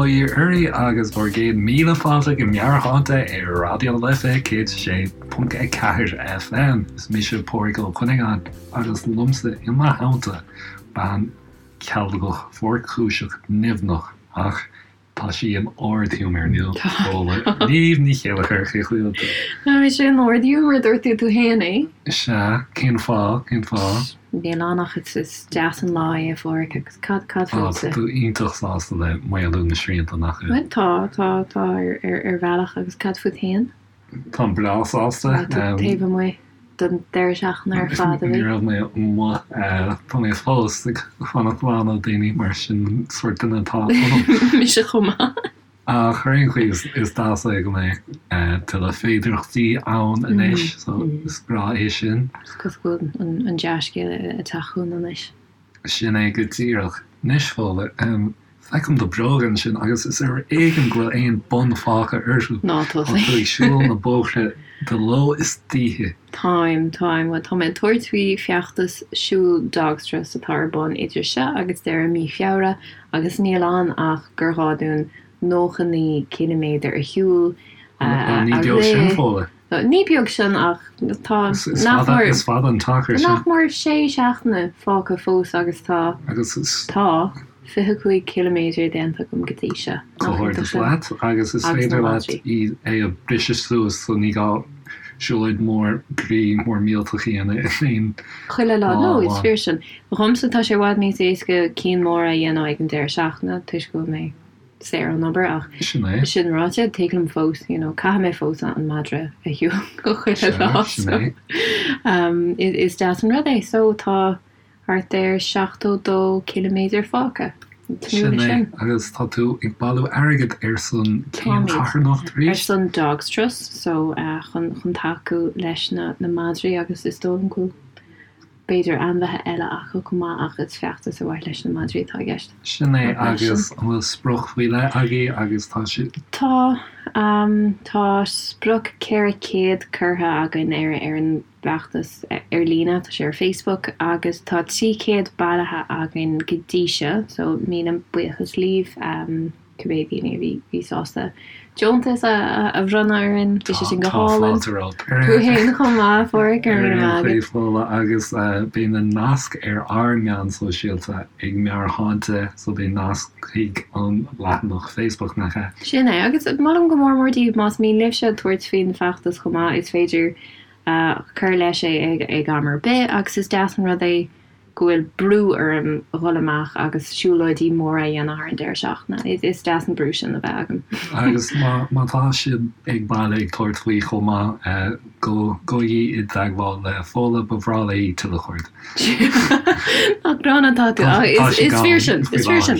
Bail ó Dhia oraibh agus bhur gcéad míle fáilte go Meabhairshláinte ar Raidió na Life 106.4 FM. Is mise Pádraig Ó Cuinneagáin agus liomsa i mo theannta bean chealgach fuarchúiseach nimhneach ach Tá sí in ard-ghiúmar inniu, Fódhla Niamh Ní Chéilleachair, cén chaoi a bhfuil tú? Tá mise in ard-ghiúmar, dúirt tú tú féin é. Sea, cén fáth, cén fáth? Níl ann ach is deas an lá é, a Phádraic, agus cad, cad fútsa? Tá tú iontach sásta le maolú na srianta, nach bhfuil? Bhuel, tá, tá, tá ar bhealach, agus cad fút féin? Táim breá sásta. Tá tú taobh amuigh don deireadh seachtaine ar fad, a bhí? Ní raibh mé amuigh. Tá mé fós ag fanacht slán ó daoine mar sin an sórt duine atá ionam. Mise chomh maith. Ach ar aon chaoi is deas é go mbeidh tuilleadh féidearthachtaí ann anois so is breá é sin. Is cosúil go bhfuil an dea-scéal ag teacht chugainn anois. Sin é go díreach. Anois, Fódhla, feicim do bhróga ansin agus is ar éigean go bhfuil aon bun fágtha orthu. Ná Tá tú ag siúl na bóithre de ló is d'oíche. Táim, táim. Bhuel, tá mé ag tabhairt faoi feachtas siúil Dogs Trust atá ar bun idir seo agus deireadh mí Feabhra agus níl ann ach gur ghá dúinn 99 ciliméadar a shiúl, a Ní beag sin, Fódhla. Ní beag sin ach tá nach mór Is fada an t-achar sin. nach mór sé seachtaine fágtha fós agus tá tá 25 ciliméadar déanta agam go dtí seo. Comhghairdeas leat agus is féidir leat é a bhriseadh suas so ní gá siúlóid mór groí mór millteach a dhéanamh in aon Chuile lá. No, is fíor sin. Dhomsa tá sé i bhfad níos éasca cinn móra a dhéanamh ag an deireadh seachtaine toisc go bhfuil mé saor ón obair ach Sin é. sin ráite, tig liom fós, you know, caithfidh mé fós an madra a shiúl chuile Sea, lá sin so é. um, is deas an rud é. So tá thart ar 72 ciliméadar fágtha. Tnúth Sin leis é. sin. Agus tá tú ag bailiú airgid ar son cén Táimid. charthanacht Ar arís? son Dogs Trust, so uh, chun, chun tacú leis na, na madraí agus is dóigh liom go bhfuil B'fhéidir ainmhithe eile acu chomh maith ach is feachtas ar mhaithe leis na madraí atá i gceist. Sin é agus an bhfuil sprioc faoi leith agaibh agus tá sé. Tá. Tá sprioc 400 curtha againn ar ar an bhfeachtas ar líne, tá sé ar Facebook, agus tá 300 bailithe againn go dtí seo so míle buíochas libh. cibé daoine a bhí bhí sásta deontas a bhronnadh orainn, bhí sé sin go Tá hálainn. fáilte romhat. Tú fhéin chomh maith, a Phádraic, go raibh míle maith agat. Fódhla agus beidh na naisc ar ár meáin sóisialta ag Meabhairshláinte so beidh nasc chuig an leathanach Facebook, nach ea? Sin é, agus molaim go mór mór daoibh más mian libhse tabhairt faoin bhfeachtas chomh maith, is féidir cur leis é ag am ar bith agus is deas an rud é go bhfuil brú orm dhul amach agus siúlóidí móra a dhéanamh thar an deireadh seachtaine. Is deas an brú sin a bheith agam. Agus má tá sibh ag baile ag tabhairt faoi chomh maith, gabhaigí i dteagmháil le Fódhla, ba bhreá léi tuilleadh cairde. Nach gránna atá tú. Tá sí Is fíor sin, gann is faoi fíor sin.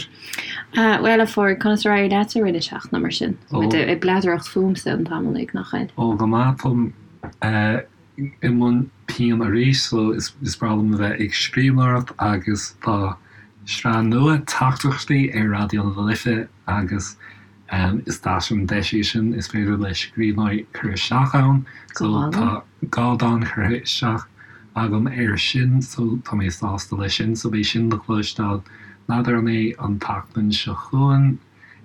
láthair. Bhuel, a Phádraig, conas ar éirigh leat i rith na seachtaine mar sin? Tá muid ag bladaireacht fúmsa an t-am uilig, nach bhfuil? Ó, go maith, táim i mbun pinn arís so is breá liom a bheith ag scríbhneoireacht agus tá sraith nua teachtaireachtaí ar Raidió na Life agus is deas an deis í sin, is féidir le scríbhneoirí cur isteach ann so tá 2 dán curtha isteach agam air sin so tá mé sásta leis sin so beidh sin le cloisteáil, n'fheadar an é an tseachtain seo chugainn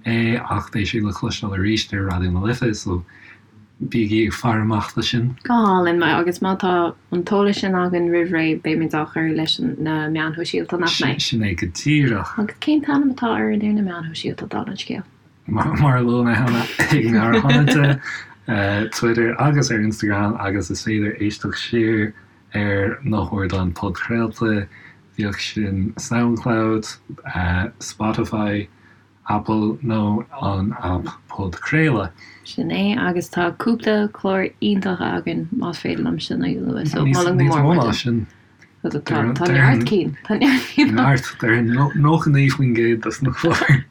é ach beidh sé le cloisteáil arís ar Raidió na Life so bígí ag faire amach do sin. Go hálainn, agus má tá an t-eolas sin againn roimh ré beimid á chur leis na meáin shóisialta, nach mbeidh? Sin é go díreach. Agus cén t-ainm atá orainn ar na meáin shóisialta, dála an scéil? Mar a luaigh mé cheana, ag Meabhairshláinte, Twitter agus ar Instagram agus is féidir éisteacht siar ar na hardáin podchraolta, bíodh sin Soundcloud, Spotify, Apple nó an aip podchraoladh. Sin é, agus tá cúpla clár iontach againn, más féidir liom sin a lua, so molaim go Níos mór mó mór ná duit. sin. Tá neart cinn, tá neart cinn. Neart, déarfainn 99% des na cláir.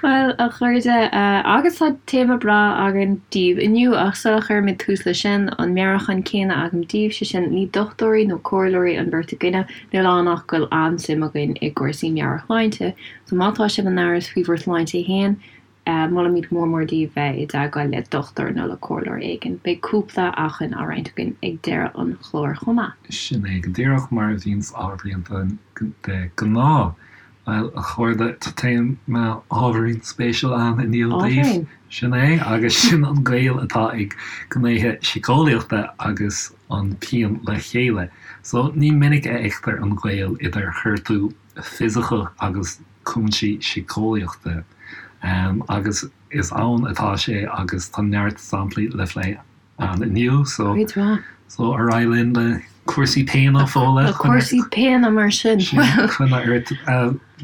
Bhuel, a chairde, agus tá téama breá againn daoibh inniu, ach sula chuirimid tús leis sin, an meabhrúchán céanna agam daoibh, sé sin, ní dochtúirí nó comhairleoirí an bheirt againne, níl ann ach go bhfuil an-suim againn i gcúrsaí meabhairshláinte, So má tá sibh in amhras faoi bhur sláinte féin, molaimid mór mór daoibh bheith i dteagmháil le dochtúir nó le comhairleoir éigin. Beidh cúpla acmhainn á roinnt againn ag deireadh an chláir chomh maith. Sin é go díreach mar a bhíonns á roinnt de ghnáth. Bhuel, a chairde, tá téama ábhairín spéisiúil ann inniu daoibh. Sin é, agus sin an gaol atá ag gnéithe síceolaíochta agus an pian le chéile. So, ní minic a fheictear an gaol idir ghortú fisiceach agus cúinsí síceolaíochta. Agus is ann atá sé agus tá neart samplaí le phlé ann inniu so Cuid mhaith. so ar aghaidh linn le cúrsaí péine Fódhla. Le cúrsaí péine mar sin. Sin coinne ort.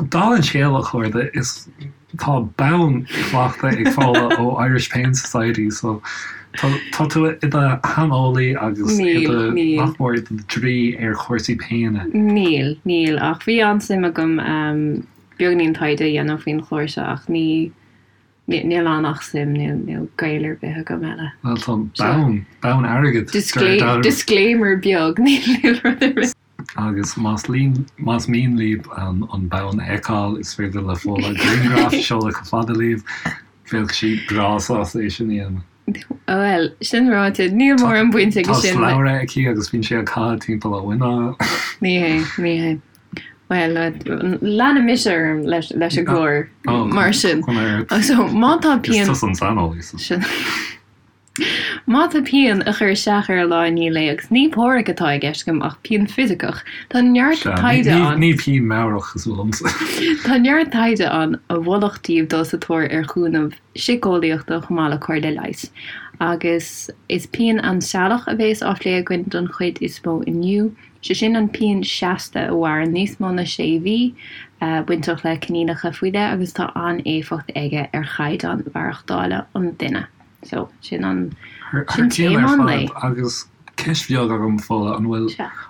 Dála an scéil a chairde is tá bonn faighte ag Fódhla ó Irish Pain Society so tá tá tú i do shaineolaí agus i do nach mór i do draoi ar chúrsaí péine. Níl, níl ach bhí an-suim agam beagainín taighde a dhéanamh faoin chlár seo ach ní Níl ann ach suim, níl gaol ar bith agam eile. Bhuel tá bonn, bonn airgid. Disclaimer beag, níl rud ar bith. Agus más más mian libh an bonn a fheiceáil, is féidir le Fódhla grianghraf a sheoladh chomh fada libh. Bheadh sí breá sásta é sin a dhéanamh. Bhuel, sin ráite, níl mórán baint aige sin. Tá slabhra aici agus bíonn sé á chaitheamh timpeall a muineál. Ní hé, ní hé. Bhuel, leanfaidh mise orm leis an gclár mar sin. So, má tá pian... Is tusa an saineolaí. Sin. Má tá pian ag cur isteach ar lá i ndiaidh lae, agus ní páraic atá i gceist agam ach pian fisiceach, tá neart taighde ann. Ní pian meabhrach cosúil liomsa. Tá neart taighde ann a mholfadh daoibh dul sa tóir ar chúnamh síceolaíochta chomh maith le comhairle leighis. Agus is pian ainsealach a bhéas á phlé againn don chuid is mó inniu. Sé sin an pian seasta a mhaireann níos mó na sé mhí, bainteach le coinníollacha faoi leith agus tá an-éifeacht aige ar chaighdeán mhaireachtála an duine. So, sin an, sin téama an lae. Agus ceist bheag agam, Fódhla, an bhfuil,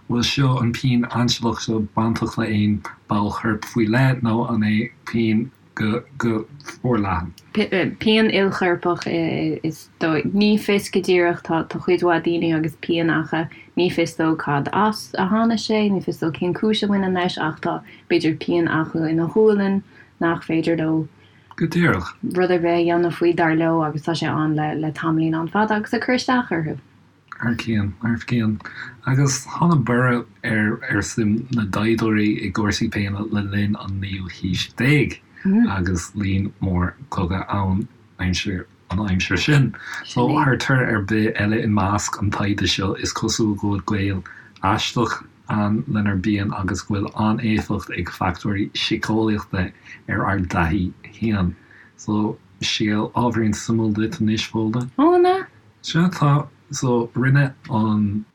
bhfuil seo, an pian ainsealach seo bainteach le aon ball choirp faoi leith nó an é pian go go forleathan. Pian ilchorpach is dóigh. Ní fios go díreach, tá cuid mhaith daoine agus pian acu, ní fios dóibh cad as a tháinig sé, ní fios dóibh cén cúis a bhaineann leis ach tá, b'fhéidir, pian acu ina ghualainn nach féidir leo Go díreach. rud ar bith a dhéanamh faoi, dar leo, agus tá sé ann le tamaillín an-fhada agus ag cur isteach orthu. Thar cionn, thar cionn. Agus tháinig borradh ar ar suim na dtaighdeoirí i gcúrsaí péine le linn an naoú haois déag agus líon mór cogadh ann aimsir an aimsir sin. So thar tor ar bith eile i measc an taighde seo is cosúil go bhfuil gaol aisteach ann lenár bpian agus go bhfuil an-éifeacht ag factóirí síceolaíochta ar ár dtaithí féin. So scéal ábhairín suimiúil duit anois, Fódhla. Ó, an ea? Sea, tá. So, rinne an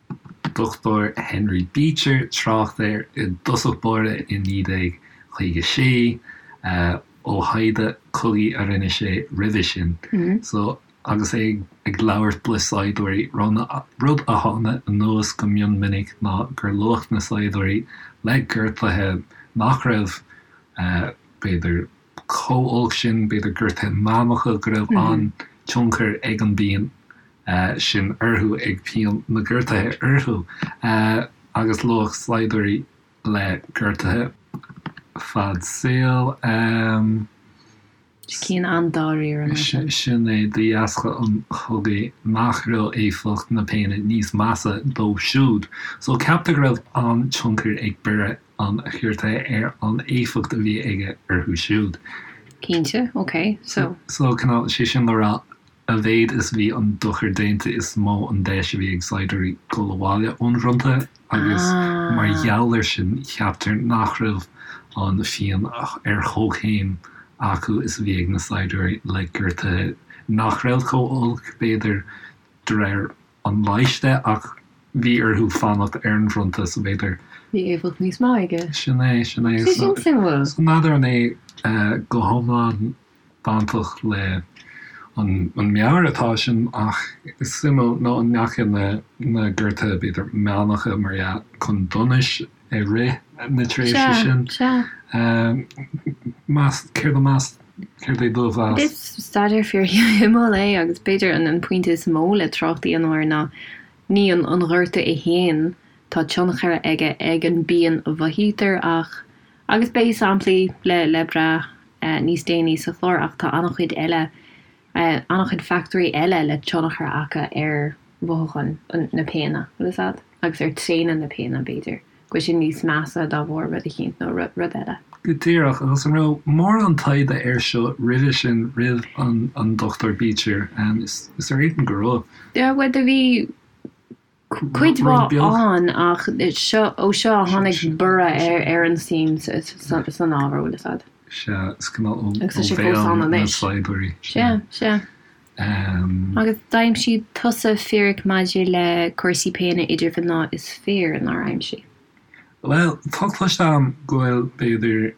Dr Henry Beecher trácht air i dtosach báire i 1956, ó thaighde cogaidh a rinne sé roimhe sin. So, agus é ag labhairt le saighdiúirí, rud a tháinig anuas go mion minic ná gur luadh na saighdiúirí le gortuithe nach raibh, b'fhéidir, chomh olc sin, b'fhéidir gortuithe meánacha, go raibh an-tionchar ag an bpian sin orthu, ag pian na ngortuithe orthu, agus luadh saighdiúirí le gortuithe fad saoil. Cinn an-dáiríre mar sin. Sin é, de dheasca an chogaidh, nach raibh éifeacht na péine níos measa dóibh siúd. So ceaptar go raibh an-tionchar ag borradh an ghortaithe ar an éifeacht a bhí aige orthu siúd. Cinnte, ok, so. So, cineál, sé sin le rá, a mhéad is a bhí an dochar déanta is mó an deis a bhí ag saighdiúirí dul abhaile ón bhfronta agus mar gheall air sin ceaptar nach raibh an phian ar chomhchéim acu is a bhí ag na saighdiúirí le gortuithe nach raibh chomh olc, b'fhéidir, de réir an leighis de ach bhí orthu fanacht ar an bhfronta so b'fhéidir. Bhí éifeacht níos mó aige. Sin é, sin é. Sé sin suimiúil. So n'fheadar an é go hiomlán bainteach le an meabhair atá sin ach is suimiúil nó an ndeachaigh na na gortuithe b'fhéidir meánacha mar dhea chun donais i rith na tréimhse sin. Sea, sea. Meas, céard a meas, céard é do mheas? Is staidéar fíorshuimiúil é agus b'fhéidir an pointe is mó le trácht a dhéanamh air ná ní an gortú é féin, tá tionchar aige ag an bpian a mhothaítear ach, agus beidh samplaí le le brath níos déanaí sa chlár ach tá an-chuid eile, an-chuid factóirí eile le tionchar acu ar mhothúcháin na péine, bhfuil fhios a'd? Agus ar tréine na péine b'fhéidir. go bhfuil sé níos measa dá bharr rud eicínt nó rud eile. Go díreach, agus an raibh mórán taighde air seo roimhe sin, roimh an Dr Beecher? Is ar éigean go raibh. Bhuel, do bhí cuid mhaith ann ach seo, ó seo a tháinig borradh ar an suim san ábhar, bhfuil fhios a'd. Sea, is cineál ó bhéal na saighdiúirí. Sea, sea. Agus d'aimsigh tusa fíric maidir le cúrsaí péine idir mhná is fir, nár aimsigh? Bhuel, tá cloiste agam go bhfuil, b'fhéidir,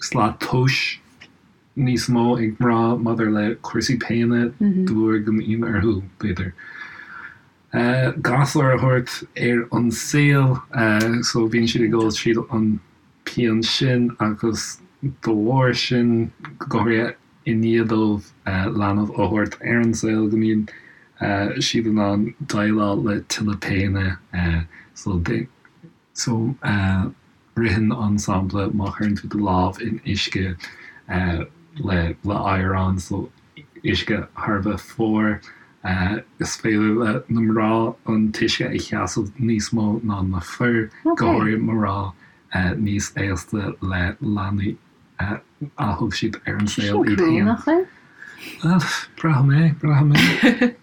slat tomhais níos mó ag mná maidir le cúrsaí péine de bharr go mbíonn orthu, b'fhéidir, gasúr a thabhairt ar an saol so bíonn siad ag dul tríd an pian sin agus de bharr sin, go háirithe i ndiaidh dóibh leanbh a thabhairt ar an saol, go mbíonn siad in ann déileáil le tuilleadh péine so So, ritheann an sampla má chuireann tú do lámh in uisce le le oighreán, so uisce thar a bheith fuar, is féidir le na mná an t-uisce a sheasamh níos mó ná na fir, go háirithe mná níos aosta le leanaí a thug siad ar an saol iad féin. Nach bhfuil? Braithim é, braithim é.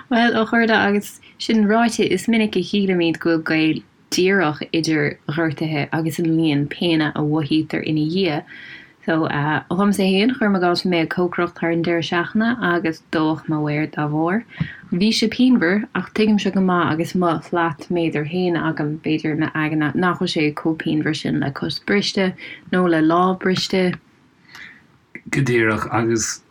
Bhuel, a chairde, agus sin ráite, is minic a shílimid go bhfuil gaol díreach idir ghortuithe agus an líon péine a mhothaítear ina dhiaidh. So, dhomsa fhéin, cuirim i gcás, bhí mé ag cócaireacht thar an deireadh seachtaine agus dódh mo mhéar dá bharr. Bhí sé pianmhar, ach tuigimse go maith agus mo shlatméadar fhéin agam, b'fhéidir, i m'aigne, nach bhfuil sé chomh pianmhar sin le cos briste nó le lámh briste. Go díreach, agus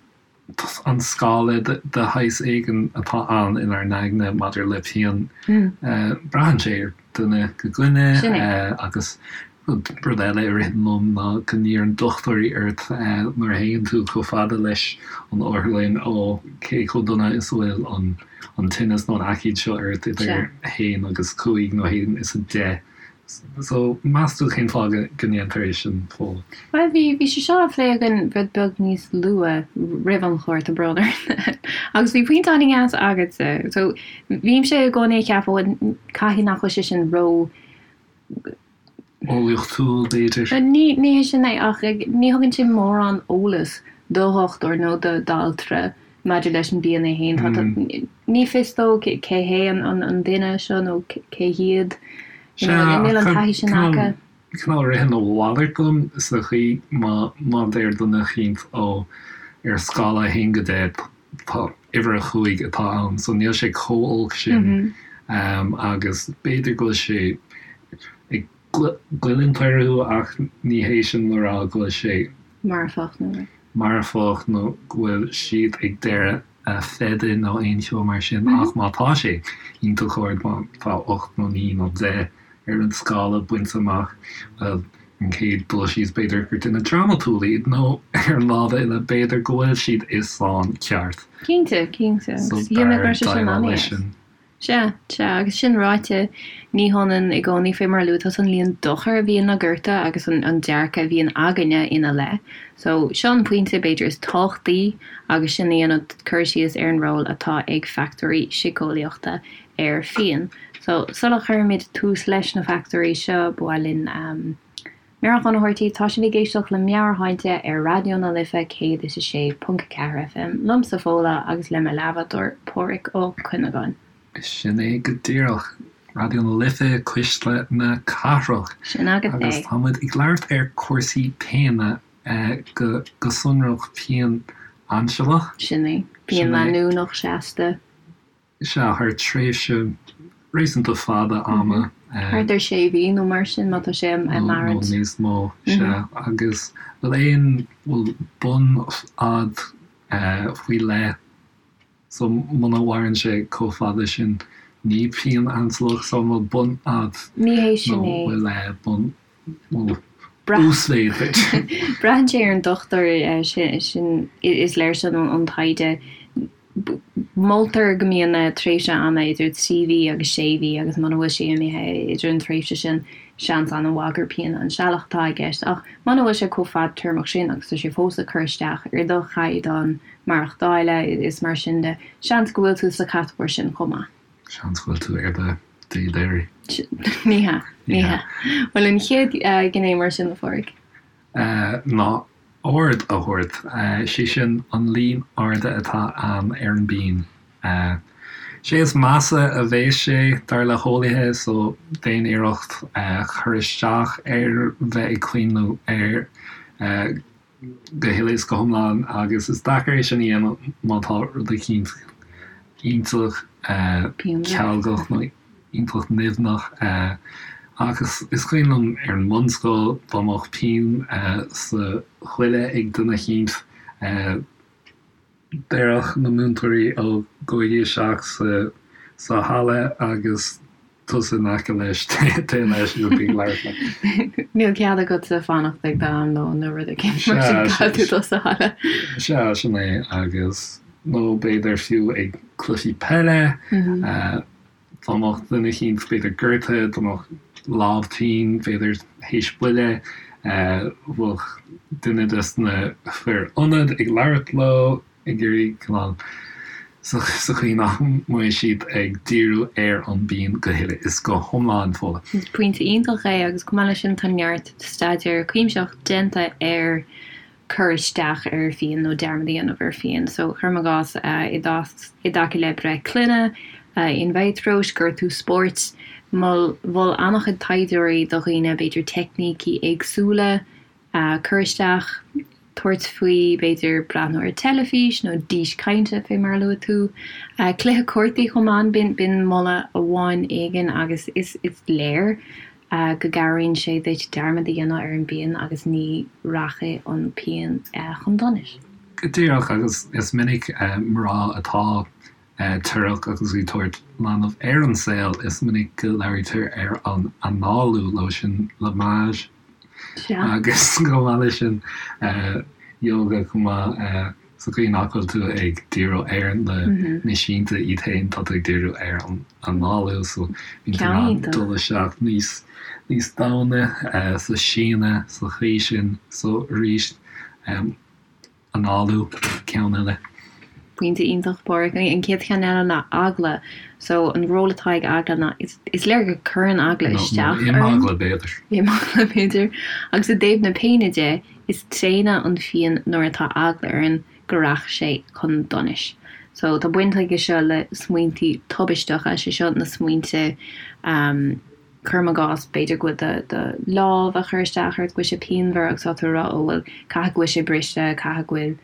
an scála de shaghas éigin atá ann inár n-aigne maidir le pian. Braitheann sé ar dhuine go duine agus rud eile a ritheann liom ná go n-iarrann dochtúirí ort nuair a théann tú chomh fada leis an otharlann ó cé chomh dona is a bhfuil an tinneas nó an aicíd seo ort idir 1 agus 5 nó 1 is 10. So, meas tú cén fáth go ndéantar é sin, Fódhla? Bhuel, bhí, bhí sé seo á phlé againn rud beag níos luaithe roimh an chlár, tá brón orm. Agus bhí pointe an-deas agatsa. So, bhímse i gcónaí ag ceapadh, bhuel, caithfidh nach bhfuil sé sin ró. Eolaíochtúil, b'fhéidir. Ní, ní hé sin é, ach ní thugann sé mórán eolas do dhochtúir nó do d'altra maidir leis an bpian é féin. Tá, ní fios dó cé hé an duine seo nó cé hiad. You know, níl an taithí sin acu. Cineál ritheann a mhalairt liom sa chaoi má má deir duine eicínt ó ar scála 1 go 10 tá uimhir 5 atá ann so níl sé chomh olc sin agus b'fhéidir go bhfuil sé ag goilliúint orthu ach ní hé sin le rá go bhfuil sé marfach nó. marfach nó go bhfuil siad ag deireadh a feide nó aon cheo mar sin ach má tá sé iontach ard, má tá 8 nó 9 nó 10 ar an scála bainte amach, bhuel, an chéad dul síos b'fhéidir gur duine drámatúil iad nó ar an lámh eile b'fhéidir go bhfuil siad i sáinn ceart. Cinnte, cinnte. So b'fhearr déileáil leis sin. Sea, sea, agus sin ráite, ní hionann i gcónaí, fé mar a luaigh tusa, an líon dochair a bhíonn le gortú agus an dearcadh a bhíonn againne ina leith. So, seo an pointe, b'fhéidir, is tábhachtaí agus sinn ag déanamh cur síos ar an ról atá ag factóirí síceolaíochta ar phian. So, sula chuirimid tús leis na factóirí seo, ba mhaith linn meabhrúchán a thabhairt daoibh, tá sibh ag éisteacht le Meabhairshláinte ar Raidió na Life 106.4 FM, liomsa Fódhla agus le mo leathbhádóir Pádhraic Ó Cuinneagáin. Sin é go díreach. Raidió na Life, Cuisle na Cathrach. Sin agat é. Agus tá muid ag labhairt ar cúrsaí péine, go sonrach pian ainsealach. Sin é. Pian leanúnach seasta. Sea, thar tréimhse réasúnta fada ama. Thart ar sé mhí nó mar sin, má tá sé ag maireacht. Nó níos mó, sea. Agus bhfuil aon, bhfuil bunfhad faoi leith, so muna mhaireann sé chomh fada sin, ní pian ainsealach, so an bhfuil bunfhad Ní hé sin é. Nó bhfuil bun, bhfuil uasmhéid b'fhéidir. Braitheann sé ar an dochtúir, sin, is léir sin ón taighde. Moltar go mbíonn tréimhse ama idir 3 mhí agus 6 mhí agus muna bhfuil sé imithe idir an tréimhse sin, seans an-mhaith gur pian ainsealach atá i gceist. Ach muna bhfuil sé chomh fadtéarmach sin agus tá sé fós ag cur isteach ar do chaighdeán maireachtála is mar sin de, seans go bhfuil tú sa chatagóir sin chomh maith. Seans go bhfuil tú ar do. Dé Ní hea, ní hea. Bhuel, an chéad ghné mar sin, a Phádraig? Ná aird a thabhairt, sé sin an líon airde atá ann ar an bpian. Sé is measa a bheas sé, dar le heolaithe, so déan iarracht cur isteach ar bheith ag cuimhneamh air go huile is go hiomlán agus is deacair é sin a dhéanamh má tá rud eicínt iontach cealgach nó iontach nimhneach. Ach is cuimhin liom ar an mbunscoil dá mbeadh pian sa chuile ag duine eicínt, déarfadh na múinteoirí ó gabhaigí isteach sa halla agus tusa in aice leis, téigh leis agus bí ag labhairt leis. Níl cead agatsa fanacht ag d'am lóin nó rud éigin mar sin caithfidh tú dul sa halla. Sea, sin é agus nó b'fhéidir fiú ag cluichí peile, Dá mbeadh duine eicínt b'fhéidir gortaithe, dá mbeadh lámh tinn, b'fhéidir théis buille, bheadh duine des na fir ionaid ag labhairt leo, ag iarraidh cineál sa chaoi nach mbeidh siad ag díriú ar an bpian go huile is go hiomlán, Fódhla. Is pointe iontach é agus chomh maith leis sin tá neart staidéar cuimsitheach déanta ar cur isteach ar phian nó dearmad a dhéanamh ar phian. So, cuirim i gcás, i dtaca le breith clainne, in vitro, gortú spóirt, mhol an-chuid taighdeoirí do dhaoine, b'fhéidir, teicnící éagsúla cur isteach, tabhairt faoi, b'fhéidir, breathnú ar teilifís nó dís cainte, fé mar a luaigh tú. Cluiche cártaí chomh maith, b'in moladh amháin éigin agus is léir go gcabhraíonn sé duit dearmad a dhéanamh ar an bpian agus ní rachaidh an pian chun donais. Go díreach, agus is minic mná atá torrach agus ag tabhairt leanbh ar an saol, is minic go labhraítear ar an análú leo sin, lavage, agus chomh maith leis sin yoga chomh maith. Sa chaoi nach bhfuil tú ag díriú ar na na sínte iad féin, tá tú ag díriú ar an análú, so bíonn tú in ann dul isteach níos níos domhaine sa síneadh sa chaoi sin. So arís, análú, ceann eile. Pointe iontach, Páraic. An chéad cheann eile ná eagla. So an ról atá ag eagla ná is is léir go cuireann eagla isteach orainn. Nó imeagla b'fhéidir. Imeagla b'fhéidir. Agus i dtaobh na péine de, Is tréine an phian nuair atá eagla orainn go rachaidh sé chun donais. So, tá baint aige seo le smaointí tubaisteacha, sé seo na smaointe, cuirim i gcás, b'fhéidir go bhfuil do, do lámh ag cur isteach ort, go bhfuil sé pianmhar agus tá tú ag rá, oh bhuel, caithfidh go bhfuil sé briste, caithfidh go bhfuil,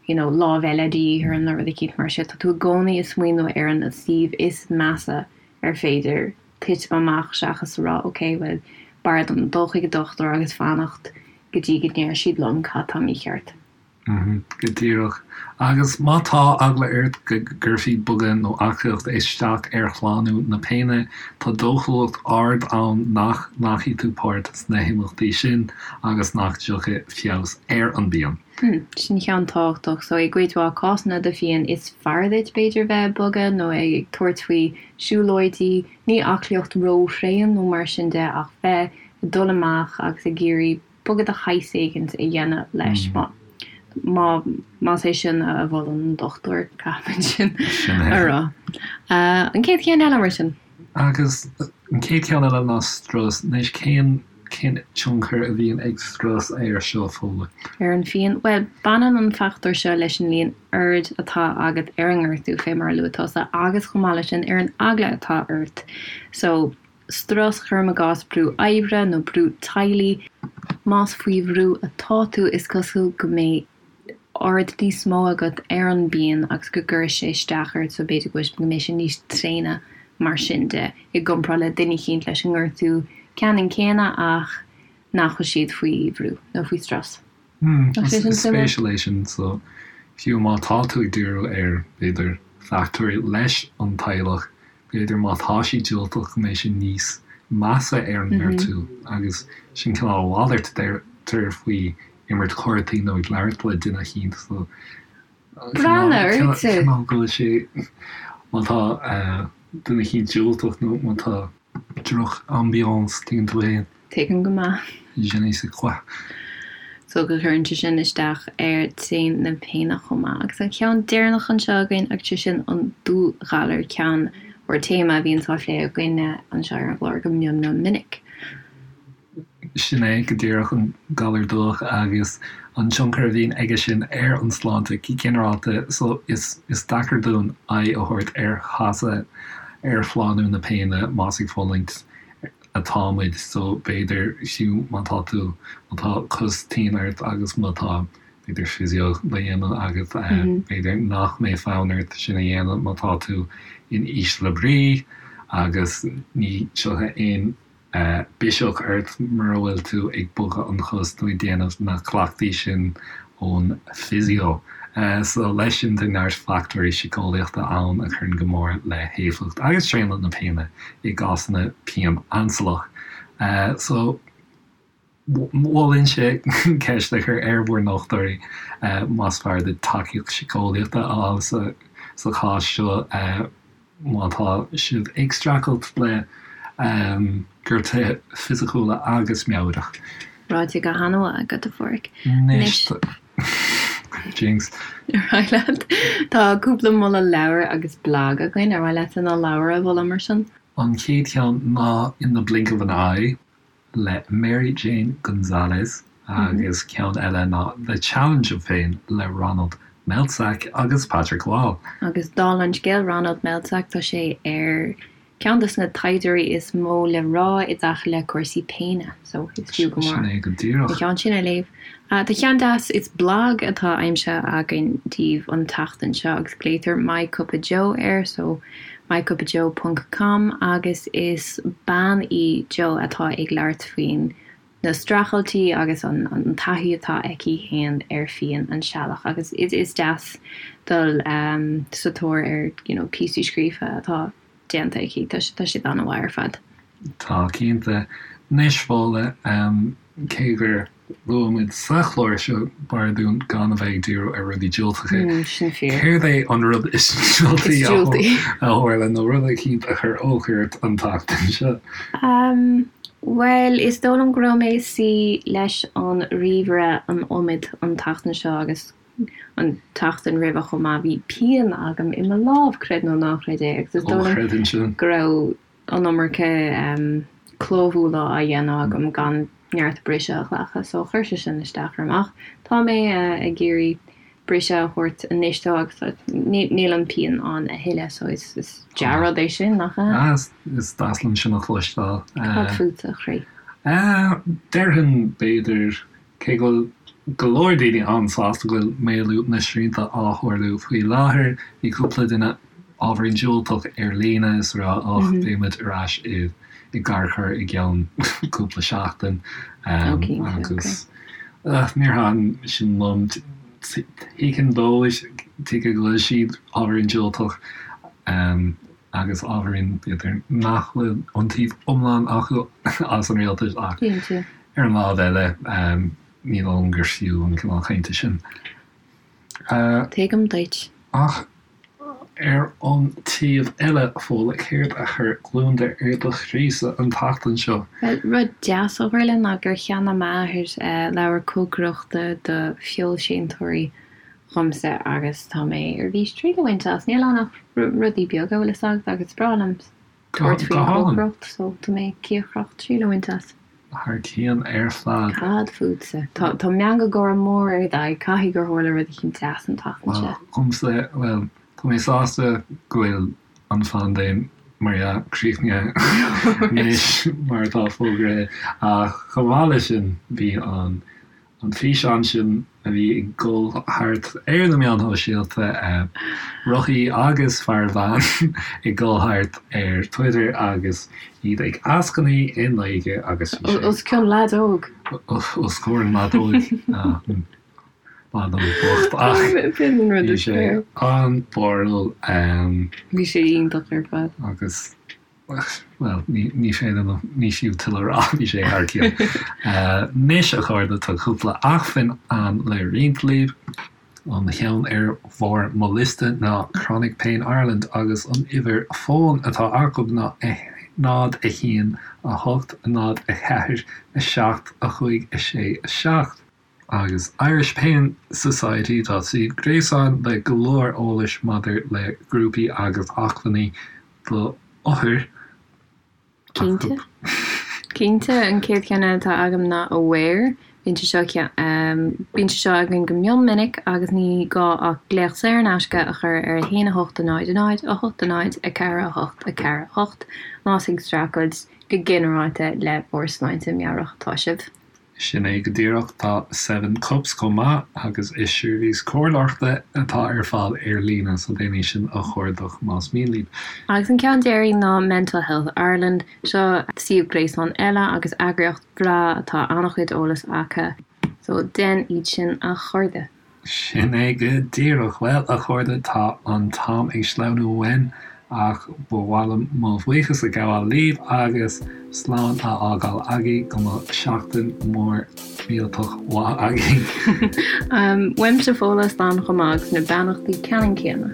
you know, lámh eile de dhíth orm nó rud eicínt mar sin. Tá tú i gcónaí ag smaoineamh ar an suíomh is measa ar féidir titim amach seachas a rá ok, bhuel, b'fhearr dom dul chuig an dochtúir agus fanacht go dtí go ndeir siad liom cad tá mícheart. Go díreach. Agus má tá eagla ort go gcuirfí bogadh nó aclaíocht isteach ar shlánú na péine, tá dóchúlacht ard ann nach nglacfaidh tú páirt sna himeachtaí sin agus nach dtiocfaidh feabhas ar an bpian. Sin ceann tábhachtach. So i gcuid mhaith cásanna de phian is fearr duit b'fhéidir bheith ag bogadh nó ag tabhairt faoi siúlóidí, ní aclaíocht ró-thréan nó mar sin de ach bheith ag dul amach agus ag iarraidh bogadh de shaghas éigint a dhéanamh leis. Má, más é sin a mholann an dochtúir, caithfimid sin a rá. An chéad cheann eile mar sin? Agus an chéad cheann eile ná strus. Anois cén, cén tionchar a bhíonn ag strus air seo, Fódhla? Ar an phian? Bhuel, baineann an fachtóir seo leis an líon aird atá agat ar an ngortú, fé mar a luaigh tusa, agus chomh maith leis sin ar an eagla atá ort. So, strus, cuirim i gcás brú oibre nó brú teaghlaigh. Más faoi bhrú atá tú, is cosúil go mbeidh aird níos mó agat ar an bpian agus go gcuirfidh sé isteach ort so b'fhéidir go go mbeidh sé níos tréine mar sin de i gcomparáid le duine eicínt leis an ngortú ceannann céanna ach nach bhfuil siad faoi bhrú nó faoi strus. Nach sé sin suimiúil? Is spéisiúil é sin so fiú má tá tú ag díriú ar b'fhéidir fachtóirí leis an teaghlach B'fhéidir má tá siad diúltach go mbeidh sé níos measa ar an ngortú agus sin cineál a mhalairt a deirtear faoi imirt cártaí nó ag labhairt le duine eicínt so cineál cineál go bhfuil sé má tá duine eicínt diúltach nó má tá droch ambiance tuigeann tú féin. Tuigim go maith. Je ne sais quoi. So go gcuireann sé sin isteach ar tréine na péine chomh maith. Agus an ceann deireanach anseo againn agus sé sin an dúghalar, ceann. mór téama a bhíonns á phlé againne anseo ar an gclár go mion mion minic. Sin é go díreach an galar dubhach agus an tionchar a bhíonn aige sin ar an sláinte go ginearálta so is is deacair dúinn aghaidh a thabhairt ar chasadh ar shlánú na péine más ag fulaingt atá muid so b'fhéidir fiú má tá tú má tá cos tinn ort agus má tá b'fhéidir physio le dhéanamh agat b'fhéidir nach mbeidh fonn ort sin a dhéanamh má tá tú in ísle brí agus ní tiocfaidh aon biseach ort mura bhfuil tú ag bogadh an chos nó ag déanamh na cleachtaí sin ón physio. So leis sin tá neart fachtóirí síceolaíochta ann a chuireann go mór le héifeacht agus traonadh na péine i gcásanna pian ainsealach. So mholfainnse ceist a chur ar bhur ndochtúirí más fearr duit tacaíocht síceolaíochta a fháil sa chás seo. má tá sibh ag streachailt le gortuithe fisiciúla agus meabhrach. Ráite go han-mhaith agat, a Pháraic. Anois, Jinx. Ar mhaith leat? Tá cúpla moladh leabhar agus blag againn. Ar mhaith leatsa na leabhair a mholadh mar sin? An chéad cheann ná In the Blink of an Eye. le Mary Jane Gonzalez agus ceann eile ná The Challenge of Pain le Ronald Melzack agus Patrick Wall. Agus dála an scéil, Ronald Melzack, tá sé ar ceann de na taighdeoirí is mó le rá i dtaca le cúrsaí péine, so is fiú go mór Sin é go díreach. an ceann sin a léamh. Tá ceann deas, is blag atá aimsithe againn daoibh an tseachtain seo agus glaotar My Cup of Joe air, so mycupofjoe ponc com agus is bean í Joe atá ag labhairt faoin na streachailtí agus an an taithí atá aici féin ar phian ainsealach agus is is deas dul sa tóir ar you know píosaí scríofa atá déanta aici tá tá siad an-mhaith ar fad. Tá cinnte. Anois Fódhla, cé gur luaigh muid sa chlár seo b'fhearr dúinn gan a bheith ag díriú ar rudaí diúltacha. Sin fíor. Céard é an rud is diúltaí a tharla nó rud eicínt a chuir olc ort an tseachtain seo? Bhuel, is dóigh liom go raibh mé ag suí leis an ríomhaire an iomad an tseachtain seo agus an tseachtain roimhe chomh maith. Bhí pian agam i mo lámh, creid nó ná creid é, agus is dóigh liom go raibh an iomarca clóbhualadh á dhéanamh agam gan neart briseadh a ghlacadh so chuir sé sin isteach orm ach tá mé ag iarraidh briseadh a thabhairt anois dó agus níl an pian ann a thuilleadh so is dea-rud é sin, nach ea? Is deas liom sin a chloisteáil. Cad fútsa, a chroí? Déarfainn b'fhéidir Cé go bhfuil go leor daoine an-sásta go bhfuil maolú na srianta á tharlú faoi láthair, bhí cúpla duine ábhairín diúltach ar líne is ag rá och, beidh muid ar ais i gcarcair i gceann cúpla seachtain agus níor thaitin sin liom. Tuigim dóibh, tuigim go bhfuil siad ábhairín diúltach agus ábhairín b'fhéidir nach bhfuil iontaoibh iomlán acu as an rialtas ach ar an lámh eile ní dóigh liom gur fiú an cineál cainte sin. Tuigim duit. Ach ar an taobh eile, Fódhla, céard a chuir gliondar ar do chroísa an tseachtain seo? Bhuel, rud deas a tharla ná gur cheannaigh m'athair leabhar cócaireachta do feoilséantóirí dhomsa agus tá mé ar bís triail a bhaint as. Níl ann ach rudaí beaga, bhfuil fhios agat, agus is breá liom tabhairt faoin chócaireacht so tá mé cíocrach triail a bhaint as. Thar cionn ar fad. Cad fútsa? Tá tá meangadh gáire mór ar d'aghaidh, caithfidh gur tharla rud eicínt deas an tseachtain seo. Dhomsa, bhuel, tá mé sásta go bhfuil an phaindéim, mar dhea, críochnaithe anois mar atá fógraithe ach chomh maith leis sin bhí an An físeán sin a bhí ag dul thart ar na meáin shóisialta, rothaí agus fear veain ag dul thart ar Twitter agus iad ag eascainí i nGaeilge agus bhí sé. Os cionn leaid óg. Os comhair an leaid óig. Leaid óg bocht ach bhí sé an-bharrúil. Bhí sé iontach ar fad. Agus. Bhuel, ní féidir liom, ní fiú tuilleadh a rá, bhí sé thar cionn. Anois, a chairde, tá cúpla acmhainn ann le roinnt libh. An cheann ar bharr mo liosta ná Chronic Pain Ireland agus an uimhir fóin atá acu ná 0, 1, 8, 0, 4, 7, 5, 6, 7. Agus Irish Pain Society, tá suíomh gréasáin le go leor eolais maidir le grúpaí agus acmhainní. do othair. Cinnte. Cinnte, an chéad cheann eile atá agam ná Aware. Bíonn sé seo bíonn sé seo againn go mion minic agus ní gá ach glaoch saor in aisce a chur ar 1 8 0 0 8 0 4 8 4 8 más ag streachailt go ginearálta le bhur sláinte meabhrach atá sibh. Sin é go díreach, tá Seven Cups chomh maith agus is seirbhís comhairleoireachta atá ar fáil ar líne, so déan é sin a chuardach más mian libh. Agus an ceann deiridh ná Mental Health Ireland, seo suíomh gréasáin eile agus eagraíocht bhreá atá an-chuid eolas acu, so déan iad sin a chairde. Sin é go díreach. Bhuel, a chairde, tá an t-am ag sleamhnú uainn, ach ba mhaith liom mo bhuíochas a ghabháil libh agus slán a fhágáil agaibh. Go mbeadh seachtain mhór mhillteach mhaith agaibh. Uaimse Fódhla, slán chomh maith agus na beannachtaí ceannann céanna.